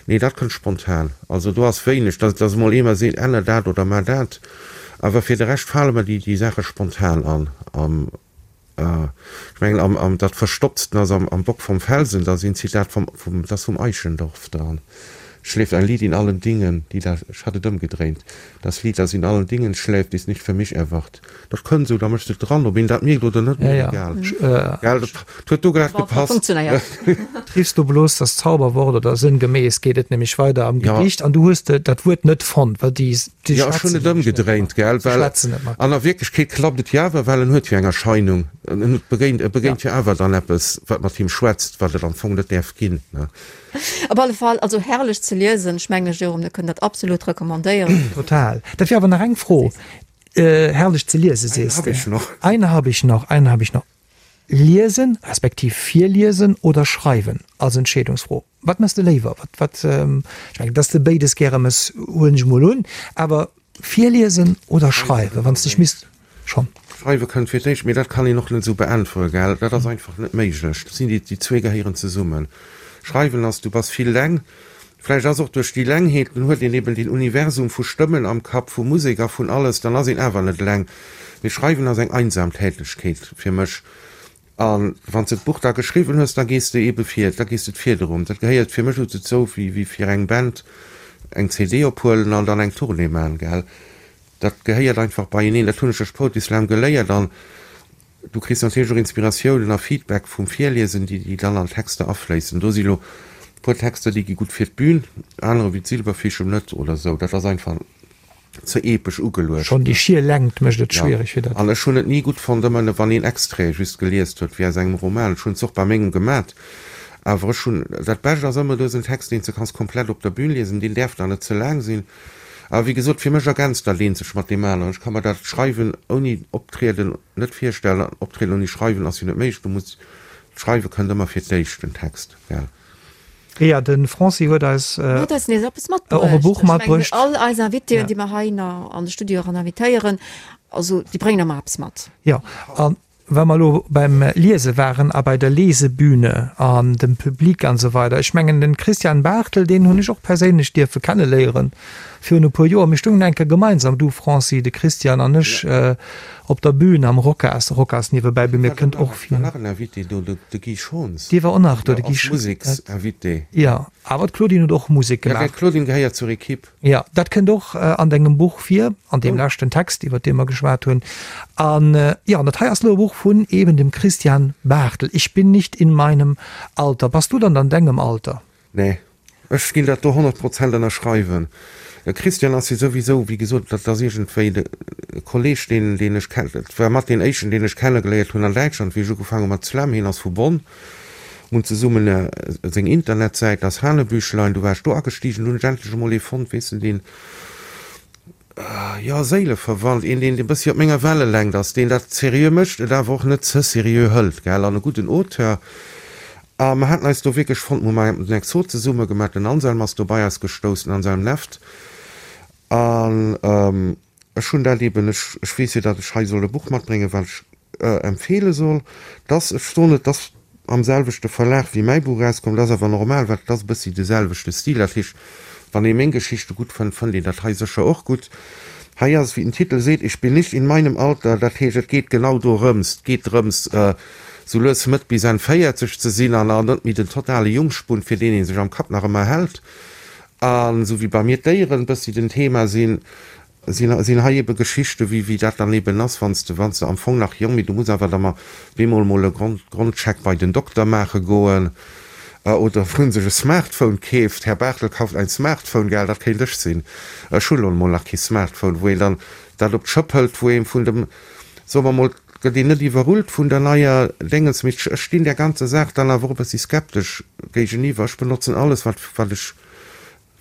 nee, dat kënnt spontan. Also do ass wéineg, dass dass emol ee mer seet, änner dat oder mar dat. Awer fir de Rescht fale mer déi déi Saache spontan an. Am, ech mengen am am dat Verstopptsten ass am am Bock vom Felsen, da ass een Zitat vom vum, dat ass vum Eichendorff dran. Schläft ein Lied in allen Dingen, die da, ech hat et ëmgedréint, Das Lied, das in allen Dingen schläft, ist nicht für mich erwacht. Dat kënnt esou, da méchs de et dran, ob een dat mierkt oder net, mir egal. Gell, dat huet do grad gepasst. Triffs du bloß das Zauberwort oder sënngemäß geet et nämlech weider am Gedicht an du hues dat Wuert net fonnt, well déi Jo, ech hunn et ëmgedréint, gell, well an der Wierklechkeet klappt et jo awer, well en huet jo eng Erscheinung, en begéint, e begéint jo awer dann eppes, wat mat him schwätzt, wat et am Fong net däerf ginn, ne. Op alle Fall, also herrlech ze liesen. Ech mengen, Jérôme, mir kënnen dat absolut recommandéieren. Total. Dat wier awer nach eng Fro. Herrlech ze liesen, sees de. Eine hab ich noch, eine hab ich noch. Liesen, respektiv virliesen oder schreiwen als Entscheedungsfro. Wat mëss de léiwer? Wat, wat, ech mengen, dass de béides gäre mëss, huelen ech emol un. Awer virliesen oder schreiwen, wann s de dech misst schonn. Schreiwe kënnt fir d'éischt, mee dat kann een och net esou beäntwere, gell? Dat ass einfach net méiglech. Dat sinn déi, déi zwee gehéieren zesummen. Schreiwen ass, du bass vill leng, vläicht ass och duerch déi Lengheet, dann huet een eben deen Universum vu Stëmmen am Kapp, vu Musek a vun alles, dann ass een awer net eleng. Mee Schreiwen ass eng einsam Tätegkeet fir mech. A wann s de d'Buch da geschriwwen hues, da gees de ebe vir, da gees de d'Fiederum. Dat gehéiert fir mech dozou, wéi wéi fir eng Band eng CD ophuelen an dann eng Tournée man, gell. Dat gehéiert einfach beieneen. Dat hunn ech duerch Poetry Slam geléiert. An du kriss natierlech och Inspiratiounen a Feedback vum Virliesen, déi déi dann an d'Texter afléissen. Do si lo e puer Texter, déi gi gutt fir d'Bün, anerer wéi d'Silberfischem net oder esou. Dat ass einfach ze epesch ugeluecht. Schonn déi schier Längt mécht et schwiereg fir dat. An ech hunn et ni gutt fonnt, ëmmer wann een Extraite just geliest huet, wéi aus engem Roman. Ech hunn et och bei mengem gemat, awer ech hunn, dat Bescht ass ëmmer, du hues en Text, deen s de kanns komplett op der Bühn liesen, deen däerf dann net ze laang sinn. Awer wéi gesot, fir mech ergänzt dat eent sech mat deem aneren. Ech ka mer dat Schreiwen ouni Optrieden net virstellen an Optrieden ouni Schreiwen ass jo net méiglech. Du muss, d'Schreiwe kënnt ëmmer fir d'éischt, den Text, gell. Jo, de Franci huet eis Huet eis nees eppes matbruecht. Och e Buch matbruecht. Ech mengen, all eis Invitéen, déi mer hei an de Studio eran invitéieren, also déi bréngen ëmmer eppes mat. Jo, a wa mer elo beim Liese waren a bei der Lesebühne an dem Public an esou weider, ech mengen, de Christian Barthel, deen hunn ech och perséinlech dierfe kenneléieren virun e puer Joer. Mir stungen eng Kéier gemeinsam, du Franci, de Christian an ech, Op der Bühn am Rocas, Rocas niewebäi bemierkt kënnt och vir. War nach en Invité do, de Guy Schons. Dee war och nach do, de Guy Schons. Als Museksinvité. Jo, awer d'Claudine huet och Musek gemaach. Jo, d'Claudine gehéiert zur Equipe. Jo, dat kënnt och an dengem Buch vir, an deem leschten Text, iwwer dee mer geschwat hunn. An jo, an dat hei ass elo e Buch vun eben dem Christian Barthel, Ich bin nicht in meinem Alter. Bass du dann an dengem Alter? Nee, ech ginn dat do 100 Prozent ënnerschreiwen. De Christian ass jo souwisou, wéi gesot, dat ass iergendwéi de Kolleg, deen, deen ech ken, dat war mat deen éischten, deen ech kennegeléiert hunn an Däitschland, wéi ech ugefaangen hu mat Slam. Hien ass vu Bonn. Mir hunn zesummen seng Internetsäit, das Hanebüchlein, du war ech do agestigen, du hunn ech endlech emol ee fonnt, weess de, deen, jo, Séileverwandt, een, deen e bëssi op menger Wellelängt ass, deen dat seriö mécht, et awer och net ze seriö hëlt, gell, an e gudden Auteur. A mer haten eis do wierklech fonnt, mer hu mar den Exot zesumme gemaach, den Anselm ass do bei eis gestouss, den Anselm Neft. An ech hunn dat eeben, ech, ech weess jo, datt ech hei soll e Buch matbréngen, wat ech empfeele soll, dass, ech soen et, dass am selwechte Verlag wéi mäi Buch erauskomm, dat ass awer normal, well et ass e bëssi de selwechte Stil. Dat heescht, wann ee meng Geschichte gutt fënnt, fënnt een dat hei sécher och gutt. Hei ass et, wéi den Titel seet, Ich bin nicht in meinem Alter, dat heescht, et geet genau dorëms, et geet drëms, sou lues Mëtt bis Enn 40 ze sinn an net méi den totale Jungspund, fir deen ee sech am Kapp nach ëmmer hält. An esou wéi bei mir d'Déieren e bëssi den Thema sinn, sinn hei ebe Geschichte wéi wéi dat dann eben ass, wann s de wann s de am Fong nach jong, mee du muss awer da mar bemol mol e Grond Grondcheck bei den Dokter maache goen oder wou en sech e Smartphone keeft, Herr Barthel kauft ein Smartphone, gell, dat kéint ech sinn, ech hunn elo mol nach kee Smartphone, wou een dann dat op d'Schëpp hëlt, wou een vun dem, soe mer mol, gëtt een net iwwerrullt vun der neier Déngens, mee ech stinn där ganzer Saach dann awer och e bëssi skeptesch géigeniwwer. Ech benotzen alles wat wat ech.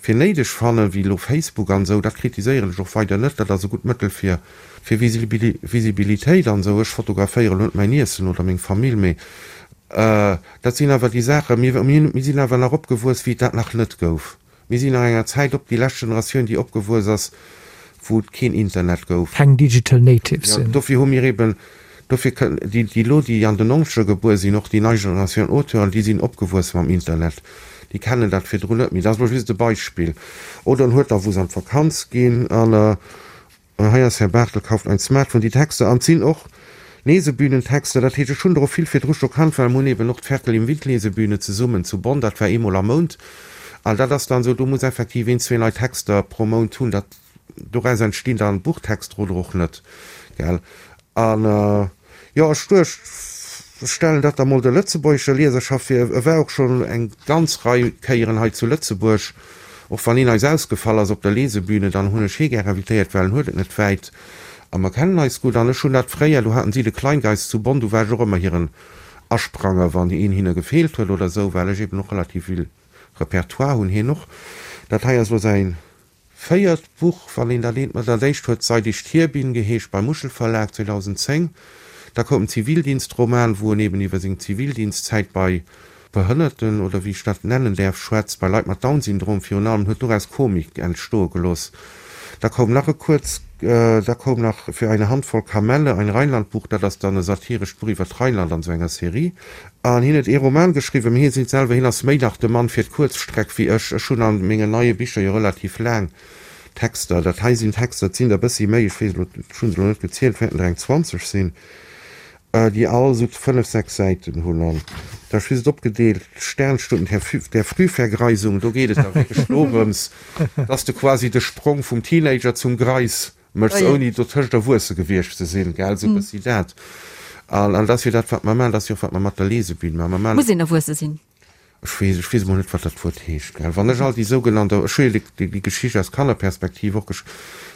fir néideg fannen, wéi elo Facebook an esou, dat kritiséieren ech och weider net, dat ass e gutt Mëttel fir fir Visibilitéit an esou. Ech fotograféieren elo net mäin Iessen oder meng Famill, mee dat sinn awer déi Saachen, mir mir sinn awer nach opgewuess, wéi et dat nach net gouf. Mir sinn nach enger Zäit op, déi lescht Generatioun, déi opgewuess ass, wou et keen Internet gouf. Keng Digital Natives sinn. Dofir hu mir eben, dofir kënnen déi, déi elo, déi an den Nonzeger gebuer sinn, och déi nei Generatioun Auteuren, déi sinn opgewuess mam Internet, déi kennen dat virdrun net méi. Dat ass elo just e Beispill. Oder en huet da, wou se an d'Vakanz ginn an Hei ass Herr Barthel kauft ein Smartphone. Déi Texter, an et sinn och Lesebühnentexter, dat heescht, ech hunn der och vill virdru scho kannt, well mer hunn eben och d'Ferkel im Wind Lesebühne zesummen zu Bonn, dat war eemol am Mount. An dat ass dann esou, do muss effektiv een, zwee nei Texter pro Mount hunn, dat, doraus entstinn dann Buchtexter oder och net, gell. An. Jo, ech duecht, ech stellen dat da mol der lëtzebuergescher Lieserschaft vir. E war och schonn eng ganz Rei Kéieren hei zu Lëtzebuerg. Och wann hien eis ausgefall ass op der Lesebühne, dann hunn ech hie gär invitéiert, well en huet et net wäit a mer kennen eis gutt. An ech hunn dat fréier, do haten si de Kleingeist zu Bonn, do war ech och ëmmer hiren Aspranger, wann een hinne gefeelt huet oder esou, well ech eben och relativ vill Repertoire hunn, hien och. Dat hei ass elo säin Véiert Buch, wann een dat eent mat. Dat éischt huet Seit ich hier bin geheescht, beim Muschelverlag 2010. Da koum en Zivildienstroman, wou en eben iwwer seng Zivildienstzäit bei Behënnerten, oder wéi ech dat nennen däerf, schwätzt, bei Leit mat Down-Syndrom virun allem, huet doraus Komik entstoe gelooss. Da koum nach e kuerz, da koum nach Für eine Handvoll Kamelle, ein Rheinlandbuch, dat ass dann e satirescht Buch iwwer d'Rheinland an esou enger Serie. An hien huet ee Roman geschriwwen, mee hie seet selwer, hien ass méi nach de Mann fir d'Kuerzstreck wéi ech. Ech hunn a mengen neie Bicher jo relativ laang Texter. Dat hei sinn Texter, et sinn der e bëssi méi, ech weess elo, ech hu se elo net gezielt, et wäerten der eng 20 sinn, déi all esou fënnef, sechs Säiten hunn. An da hu ech just opgedeelt, Sternstunden der Frühvergreisung, do geet et da wierklech dorëms, dass de quasi de Sprong vum Teenager zum Greis Méchs ouni dotëscht erwuesse gewiescht ze sinn, gell, esou e bëssi dat. An dat ass jo dat, wat mer maachen, dat ass jo och, wat mer mat der Lesebün maachen. Mer maachen. Muss een erwuesse sinn? Ech weess, ech weess emol net, wat dat Wuert heescht, gell. Wann ech all déi sougenannt, ech hu jo déi, déi Geschicht aus Kannerperspektiv och gesch,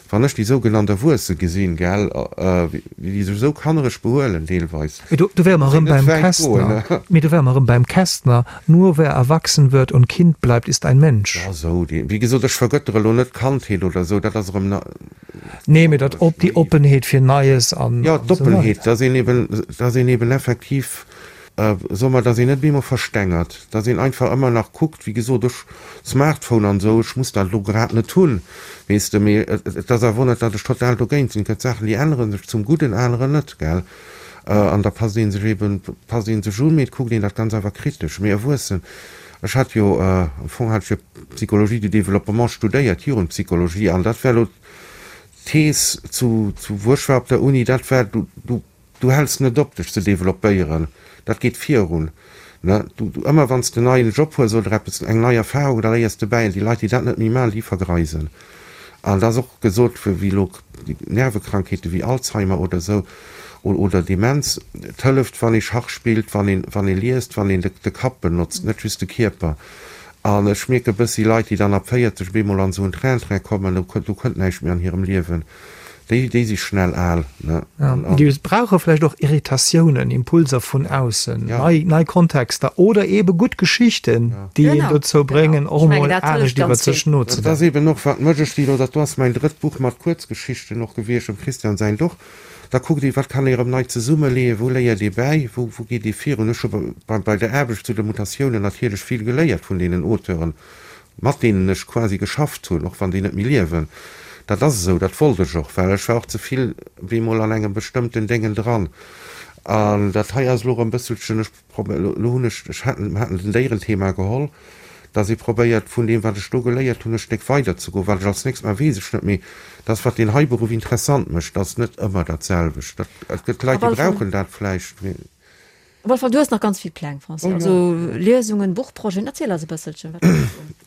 wann ech déi sougenannt Erwuesse gesinn, gell, wéi déi sech esou kannereg behuelen deelweis. Mee do, do wäre mer erëm beim Kästner, mee do wäre mer erëm beim Kästner, Nur wer erwachsen wird und Kind bleibt, ist ein Mensch. Ja, sou, déi, wéi gesot, ech vergëttere lo net d'Kandheet oder sou, dat ass erëm na. Nee, mee dat op, déi Oppenheet fir Neies an. Jo, d'Oppenheet, dass een eben, dass een eben effektiv, soe mer, dass een net bemol verstengert, dass een einfach ëmmer nach kuckt, wéi gesot, ech, Smartphone an sou, ech muss dat elo grad net hunn, weess de, mee et ass awer och net, datt ech total dogéint sinn. Et gëtt Saachen, déi ännere sech zum Gudden, anerer net, gell. An da passt ee sech eben, passt ee sech un, mee et kuckt een dat Ganz awer kritesch. Mee erwuessen, ech hat jo, am Fong hat ech jo Psychologie du développement studéiert, Jugendpsychologie, an dat war elo d'Thees zu, zu wou ech war op der Uni, dat war, du, du, du häls net op dech ze developpéieren, dat geet virun, ne. Du, du, ëmmer wann s de en neien Job hues oder eppes, eng nei Erfahrung, da léiers de bäi. An déi Leit, déi dat net méi maachen, déi vergreisen. An et ass och gesot, wéi elo Nervekrankheete wéi Alzheimer oder esou oder Demenz, et hëlleft, wann ee Schach spillt, wann een, wann ee liest, wann een de Kapp benotzt, net just de Kierper. An ech mierke bëssi Leit, déi dann ab 40 op eemol an esou en Train-Train kommen, do kënnt näischt méi an hirem Liewen. Déi, déi si schnell al, ne? Ja, déi brauche vläicht och Irritatiounen, Impulser vun aussen, nei, nei Kontexter oder eebe gutt Geschichten, déi een dozou bréngen, och emol anescht iwwer sech nozedenken. Dat ass eeben och, wat mech, ech si elo, dat do ass mäin drëtt Buch mat Kuerzgeschichten och gewiescht, dem Christian säint och, da kuckt ee, wat kann ee erëm nei zesummeleeën, wou léiert ee bäi, wou, wou geet ee virun. Ech hu bei, bei der Aarbecht zu de Mutatiounen natierlech vill geléiert vun deenen Auteuren, mat deenen ech quasi geschafft hunn, och wann déi net méi liewen. Dat ass esou, dat wollt ech och, well ech war och ze vill bemol an engem bestëmmten Déngen dran. An dat hei ass elo erëm e bësselchen, ech probéier, elo hunn ech, ech haten, mer haten den Déierenthema geholl, dass ee probéiert vun deem wat ech do geléiert hunn e Stéck weiderzegoen. Wat ech als nächst maachen, weess ech net, mee dat ass wat deen hei Beruff interessant mécht, dat ass net ëmmer dat selwecht. Dat, et gëtt Leit, déi brauchen dat vläicht, mee. Op alle Fall, du hues nach ganz vill Pläng, Francis. Also Liesungen, Buchprojeten, erziel eis e bësselchen, wat steet un?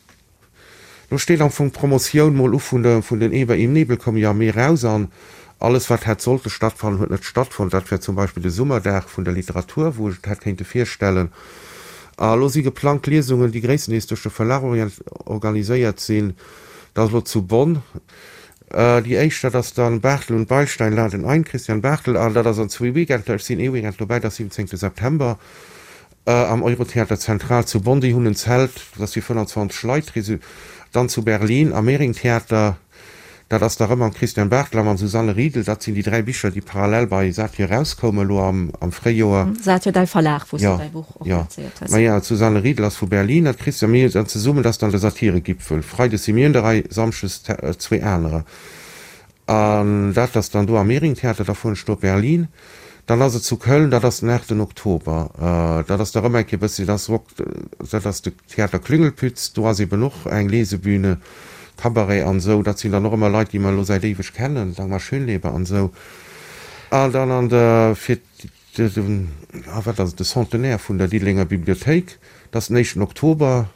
Lo steet am Fong d'Promotioun mol u vun de vun den Eber im Nebel koum jo am Mee raus an alles wat hätt sollte stattfannen huet net stattfonnt. Dat wär zum Beispill de Summerdag vun der Literatur, wou ech et hätt kéinte virstellen. A lo si geplangt Liesungen, déi gréisstendeels duerch de Verlag organiséiert sinn. Dat ass lo zu Bonn. Déi éischt, dat ass dann Barthel und Beilstein laden ein, Christian Barthel, an dat ass an zwee Weekender. Ech sinn ee Weekend dobäi, dat ass 17 September am Eurotheater Zentral zu Bonn. Déi hunn en Zelt, dat ass fir 25 Leit. Dann zu Berlin am Mehring-Theater, dat ass da rëm mam Christian Barthel a mam Susanne Riedl. Dat sinn déi 3 Bicher, déi parallel bei Satyr erauskoumen elo am Fréijoer. Satyr, däi Verlag, wou s du däi Buch och lancéiert hues. Maja, d'Susanne Riedl ass vu Berlin an d'Christian mir dann zesummen, dat ass dann de Satiregipfel. Freides si mir un der Rei, samschdes zwee anerer. An dat ass dann do am Mehringtheater, da fueren ech do op Berlin. Dann ass et zu Köln, dat ass den 8 Oktober. Dat ass da rëm eng Kéier e bëssi, dat ass Rock, dat ass de Theater Klüngelpütz, do ass eben och eng Lesebühne, Cabaret an esou. Dat sinn dann och ëmmer Leit, déi mer elo säit éiweg kennen, Dagmar Schönleber an esou. An dann an der, fir de, ah wat ass et, de Centenaire vun der Diddelenger Bibliothéik, dat ass den éischten Oktober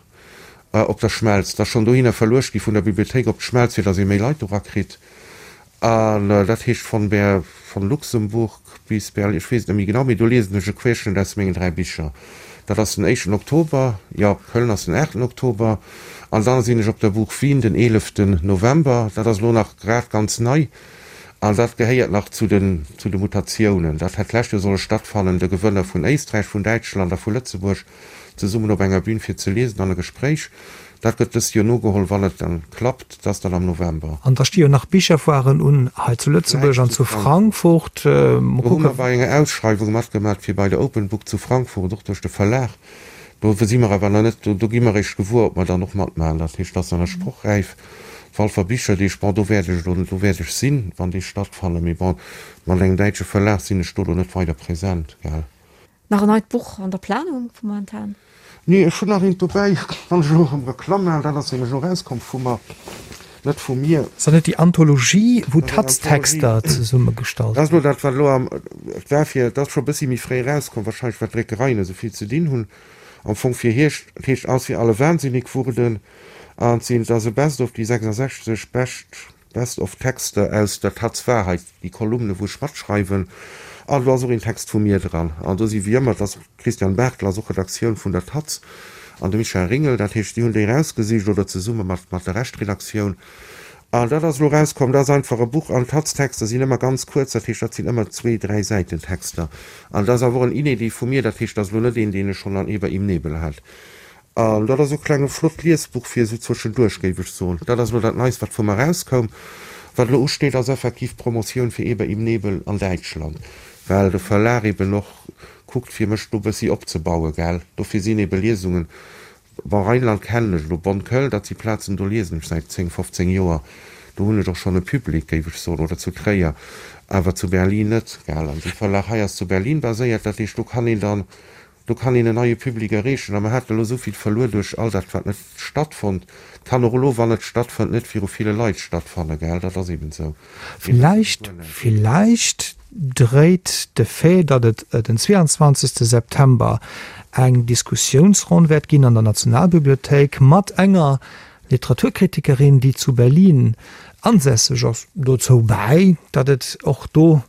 op der Schmelz. Dat ass schonn dohinner verluecht gi vun der Bibliothéik op d'Schmelz, fir datt ee méi Leit do rakritt. An dat heescht von Ber, von Luxemburg bis Berlin, ech weess et net méi genau, mee do liesen ech e Querschnëtt aus mengen 3 Bicher. Dat ass den éischten Oktober, jo, Köln ass den aachten Oktober. An dann sinn ech op der Buch Wien den eeleften November. Dat ass elo nach grad ganz nei an dat gehéiert nach zu den, zu de Mutatiounen. Dat hätt d'lescht Joer solle stattfannen, de Gewënner vun Éisträich, vun Däitschland a vu Lëtzebuerg zesummen op enger Bühn fir ze liesen an e Gespréich. Dat gëtt dëst Joer nogeholl, wann et dann klappt. Dat ass dann am November. An da sti jo nach Bicherfoiren un hei zu Lëtzebuerg an zu Frankfurt. Mol Do hu mer bei enger Ausschreiwung matgemat fir bei der Open Book zu Frankfurt, och duerch de Verlag. Do si mer awer nach net, do gi mer eréischt gewuer, ob mer dann och matmaachen. Dat heescht, dat ass nach net sprochräif. D'Walfer Bicherdeeg, bon, do wäert ech elo, do wäert ech sinn, wann déi stattfannen. Mee bon, mat engem däitsche Verlag sinn ech do elo net weider present, gell. Nach en neit Buch an der Planung momentan? Nee, ech hunn nach eent dobäi, wann ech elo erëm Reklamm maachen, dat ass nämlech elo erauskomm vu mer, net vu mir. Ass dat net déi Anthologie, wou d'Taz-Texter zesummegestallt Dat ass elo dat, wat elo am, et war fir, dat ass scho e bëssi méi fréi erauskomm, wahrscheinlech well d'Dréckereien esou vill ze dinn hunn, am Fong fir Hierscht, et heescht Als wir alle wahnsinnig wurden an et sinn, et ass e Best of, déi 66 bescht Best of Texter aus der Taz Wahrheit, déi Kolumne wou ech matschreiwen, an do ass och een Text vu mir dran. An do si wéi ëmmer, et ass d'Christiane Barthel ass och Redaktioun vun der Taz an de Michel Ringel, dat heescht si hunn déi erausgesicht oder zesumme mat mat der Reschtredaktioun. An dat ass elo erauskomm, dat ass einfach e Buch an d'Taz-Texter sinn ëmmer ganz kuerz, dat heescht dat sinn ëmmer zwee, dräi Säiten Texter. An dat ass awer och en Inédit vu mir, dat heescht dat ass elo net een deen ech schonn an Eber im Nebel hat. An dat ass e klenge flott Liesbuch fir esou zwëschenduerch, géif ech soen. Dat ass elo dat Neist, wat vu mer erauskoum. Wat elo usteet, ass effektiv d'Promotioun fir Eber im Nebel an Däitschland, well de Verlag eben och kuckt, fir mech do e bëssi opzebauen, gell. Dofir sinn ebe Liesungen, bon, Rheinland kennen ech elo, Bonn, Köln, dat si Plazen, do liesen ech säit 10, 15 Joer. Do hunn ech och schonn e Public, géif ech soen, oder zu Tréier, awer zu Berlin net, gell. An dee Verlag hei ass zu Berlin baséiert, dat heescht, do kann een dann Do kann een en neie Public erreechen. A mer haten elo esou vill verluer duerch all dat, wat net stattfonnt. Et kann och elo, wann et stattfënnt, net viru ville Leit stattfanne, gell? Dat ass eben esou. Villäicht, villäicht dréit de Fait, datt et den 22 September eng Diskussiounsronn wäert ginn an der Nationalbibliothéik mat enger Literaturkritikerin, déi zu Berlin ansässeg ass, dozou bäi, datt et och do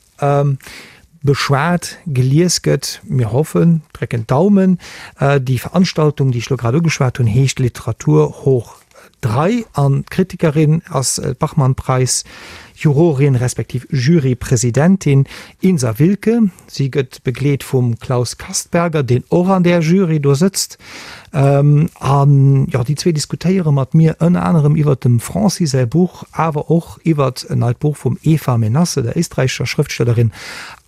Beschwat, gelies gëtt. Mir hoffen, drécken d'Daumen. Déi Veranstaltung, déi ech elo grad ugeschwat hunn, heescht Literatur hoch 3 an d'Kritikerin ass d'Bachmann-Preis Jurorin respektiv Jurypresidentin Insa Wilke. Si gëtt begleet vum Klaus Kastberger, deen och an där Jury do sëtzt. An jo, déi zwee diskutéiere mat mir ënner anerem iwwert dem Francis säi Buch, awer och iwwert en neit Buch vum Eva Menasse, der éisträichescher Schrëftstellerin,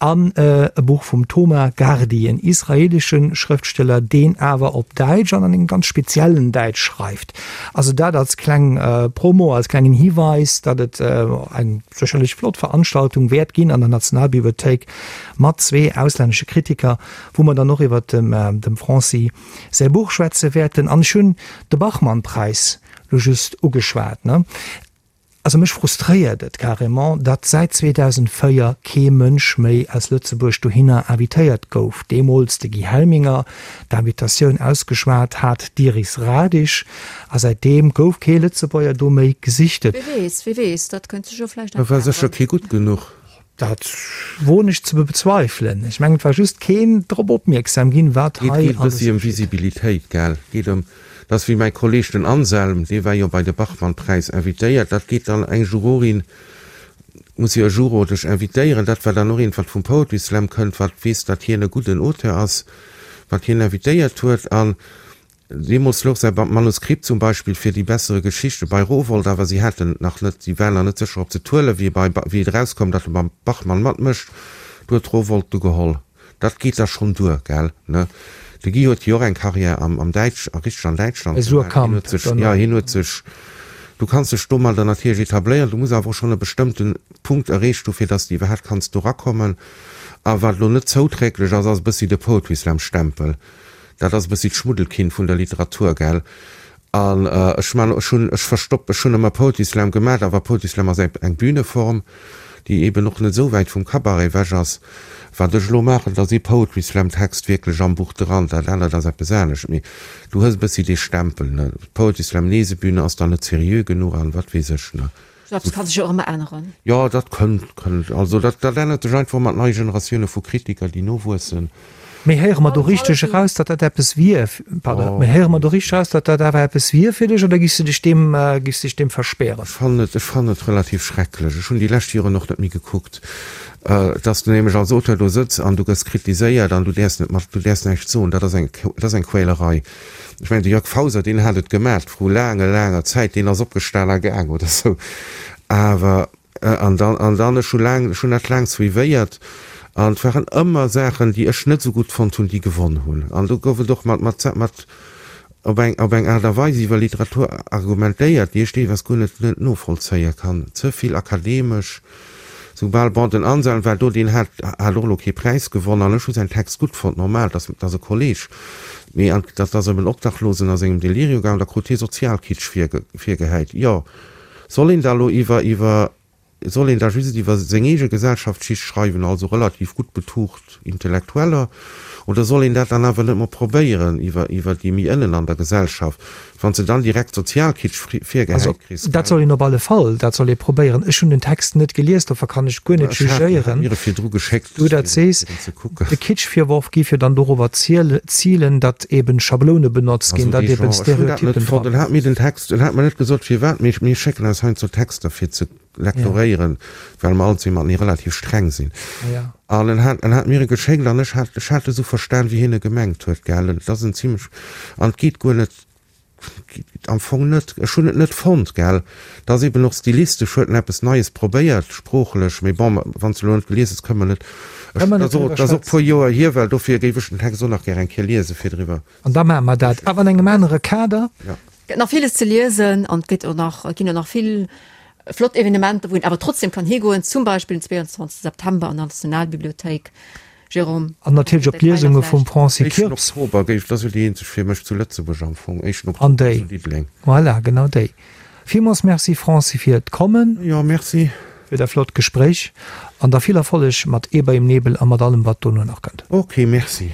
an e Buch vum Toma Gardi, en israeelesche Schrëftsteller, deen awer op Däitsch an an engem ganz speziellen Däitsch schreift. Also dat als kleng Promo, als klengen Hiweis, datt et eng sécherlech flott Veranstaltung wäert ginn an der Nationalbibliothéik mat zwee auslännesche Kritiker, wou mer dann och iwwert dem Francis säi Buch schwätze wäerten. An ech hunn de Bachmann-Präis lo just ugeschwat, ne? Also mech frustréiert et carrément, datt säit 2004 kee Mënsch méi aus Lëtzebuerg dohinner invitéiert gouf. Deemools de Guy Helminger, d'Invitatioun ausgeschwat hat d'Iris Radisch, a säitdeem gouf kee Lëtzebuerger do méi gesichtet. Wie weess, wie weess, dat kënnt sech jo vläicht nach Da war sécher kee gutt genuch. Dat woen ech ze bezweifelen. Ech mengen, et war just keen drop opmierksam ginn, wat hei alles geschitt. Et geet e bëssi ëm Visibilitéit, gell? Et geet ëm, dat ass wéi mäi Kolleeg den Anselm, dee war jo bei de Bachmann-Präis invitéiert, dat geet dann eng Jurorin, muss jo e Juror dech invitéieren, dat war dann och eent, wat vum Poetry Slam kënnt, wat weess, datt hien e gudden Auteur ass, wat hien invitéiert huet. An. Deemools louch säi Manuskript zum Beispill fir Die bessere Geschichte bei Rowohlt, awer si haten et nach net, si waren nach net sécher, ob se et huelen. Wéi bei, wéi et erauskoum, datt e beim Bachmann matmécht, du huet Rowohlt du geholl. Dat geet da schonn duer, gell, ne? De Guy huet jo och eng Carrière am, am Däitsch, a richteg an Däitschland Bei gemaach. Hien Suhrkamp huet sech, dann jo, och. hien huet sech, du kanns dech domadder natierlech etabléieren, du muss awer och schonn e bestëmmte Punkt erreecht hu fir datt s de iwwerhaapt kanns do rakommen. A wat elo net zouträglech ass, ass e bëssi de Poetry Slam Stempel. Dat ass e bëssi d'Schmuddelkind vun der Literatur, gell? An ech man, ech hunn, ech verstopp, ech hunn ëmmer Poetry Slam gemat, awer Poetry Slam ass eng, eng Büneform, déi eben och net esou wäit vum Cabaret ewech ass. Wat ech elo maachen, dat ass ee Poetry Slam Text wierklech am Buch dran, dat anert ass eppes anescht. Mee du hues e bëssi dee Stempel, ne? Poetry Slam Lesebühne ass dann net seriö genuch an wat weess ech, ne? Sou eppes ka sech jo och ëmmer änneren. Jo, dat kënnt, kënnt. Also dat, dat ännert sech einfach mat neie Generatioune vu Kritiker, déi nowuessen. Mee héiere mer do richteg eraus, datt dat eppes wier, pardon, mee héiere mer do richteg eraus, datt dat awer eppes wier fir dech, oder giffs de dech deem, giffs dech deem verspären? Ech fannen et, ech fannen et relativ schrecklech. Ech hunn déi lescht Joren och net méi gekuckt. Datt s du nämlech als Auteur do sëtz an du gëss kritiséiert an du däerfs net mat, du däerfs näischt soen, dat ass eng, dat ass eng Quälerei. Ech mengen, de Jörg Fauser, deen hat et gemat vru laange, laanger Zäit, deen ass opgestan a gaang oder sou. Awer, an dann, an dann, ech hu laang, ech hunn dat laang suivéiert an et waren ëmmer Saachen, déi ech net esou gutt fonnt hunn, déi gewonn hunn. An do gouf et och mat, mat, mat op eng, op eng Aart a Weis iwwer Literatur argumentéiert, déi ech deelweis guer net, net novollzéie kann. Ze vill akademesch. Soubal, bon, den Anselm war do, deen hat hat och elo kee Präis gewonn an ech hu säin Text gutt fonnt, normal, dass dass e Kolleg, mee an dat ass ëm en Obdachlosen a sengem Delirio gaangen, da krut hie Sozialkitsch virge virgehäit. Jo, soll een da elo iwwer iwwer soll een da just iwwer seng eege Gesellschaftsschicht schreiwen, also relativ gutt betucht Intellektueller, oder soll een dat dann awer net mol probéieren iwwer iwwer déi méi ënnen an der Gesellschaft? Wann s de dann direkt Sozialkitsch virgehäit kriss, gell? Dat soll een op alle Fall, dat soll ee probéieren. Ech hunn den Text net gelies, dofir kann ech guer net jugéieren. Ech hat mir e virdru geschéckt, Du dat sees. fir en ze kucken. De Kitschvirworf géif jo dann dorobber zielen, datt eben Schabloune benotzt ginn, Also datt dee eben Genre, ech hunn dat net Stereotypen fonnt. dran. En hat mir den Text, en hat mer net gesot firwat, mee mir schécken eis heiansdo Texter fir ze lektoréieren, well mer all zwee matenee relativ streng sinn. An en hat, en hat mir e geschéckt an ech hat, ech hat e sou verstan, wéi hien e gemengt huet, gell. Et ass en zimlech, an et geet guer net, am Fong net, ech hunn et net fonnt, gell. Et ass eben och stilistesch, huet en eppes Neies probéiert, sproochlech, mee bon, wann s de elo net gelies hues, kënne mer net, ech, Kënne mer et net ass och, driwwer et ass och e puer schwätzen. Joer hier, well dofir géif ech den Text och nach gär eng Kéier liesen, fir driwwer. An da maache mer dat, awer an engem anere Kader. Ja. Gëtt nach villes ze liesen an et gëtt och nach, et ginn och nach vill flott Evenementer, wou een awer trotzdem kann higoen, zum Beispill den 22 September an der Nationalbibliothéik. Jérôme, An natierlech op Detailer d'Liesunge vum vläicht? Francis Éischten Kirps. Oktober géif, dat ass jo déi eenzeg fir mech zu Lëtzebuerg am Fong, éischten An Oktober déi. zu Diddeleng. Voilà, genau déi. Villmools Merci Francis fir d'Kommen. Jo, merci. Fir dat flott Gespréich an da vill Erfolleg mat Eber im Nebel a mat allem wat dono nach kënnt. Ok, merci.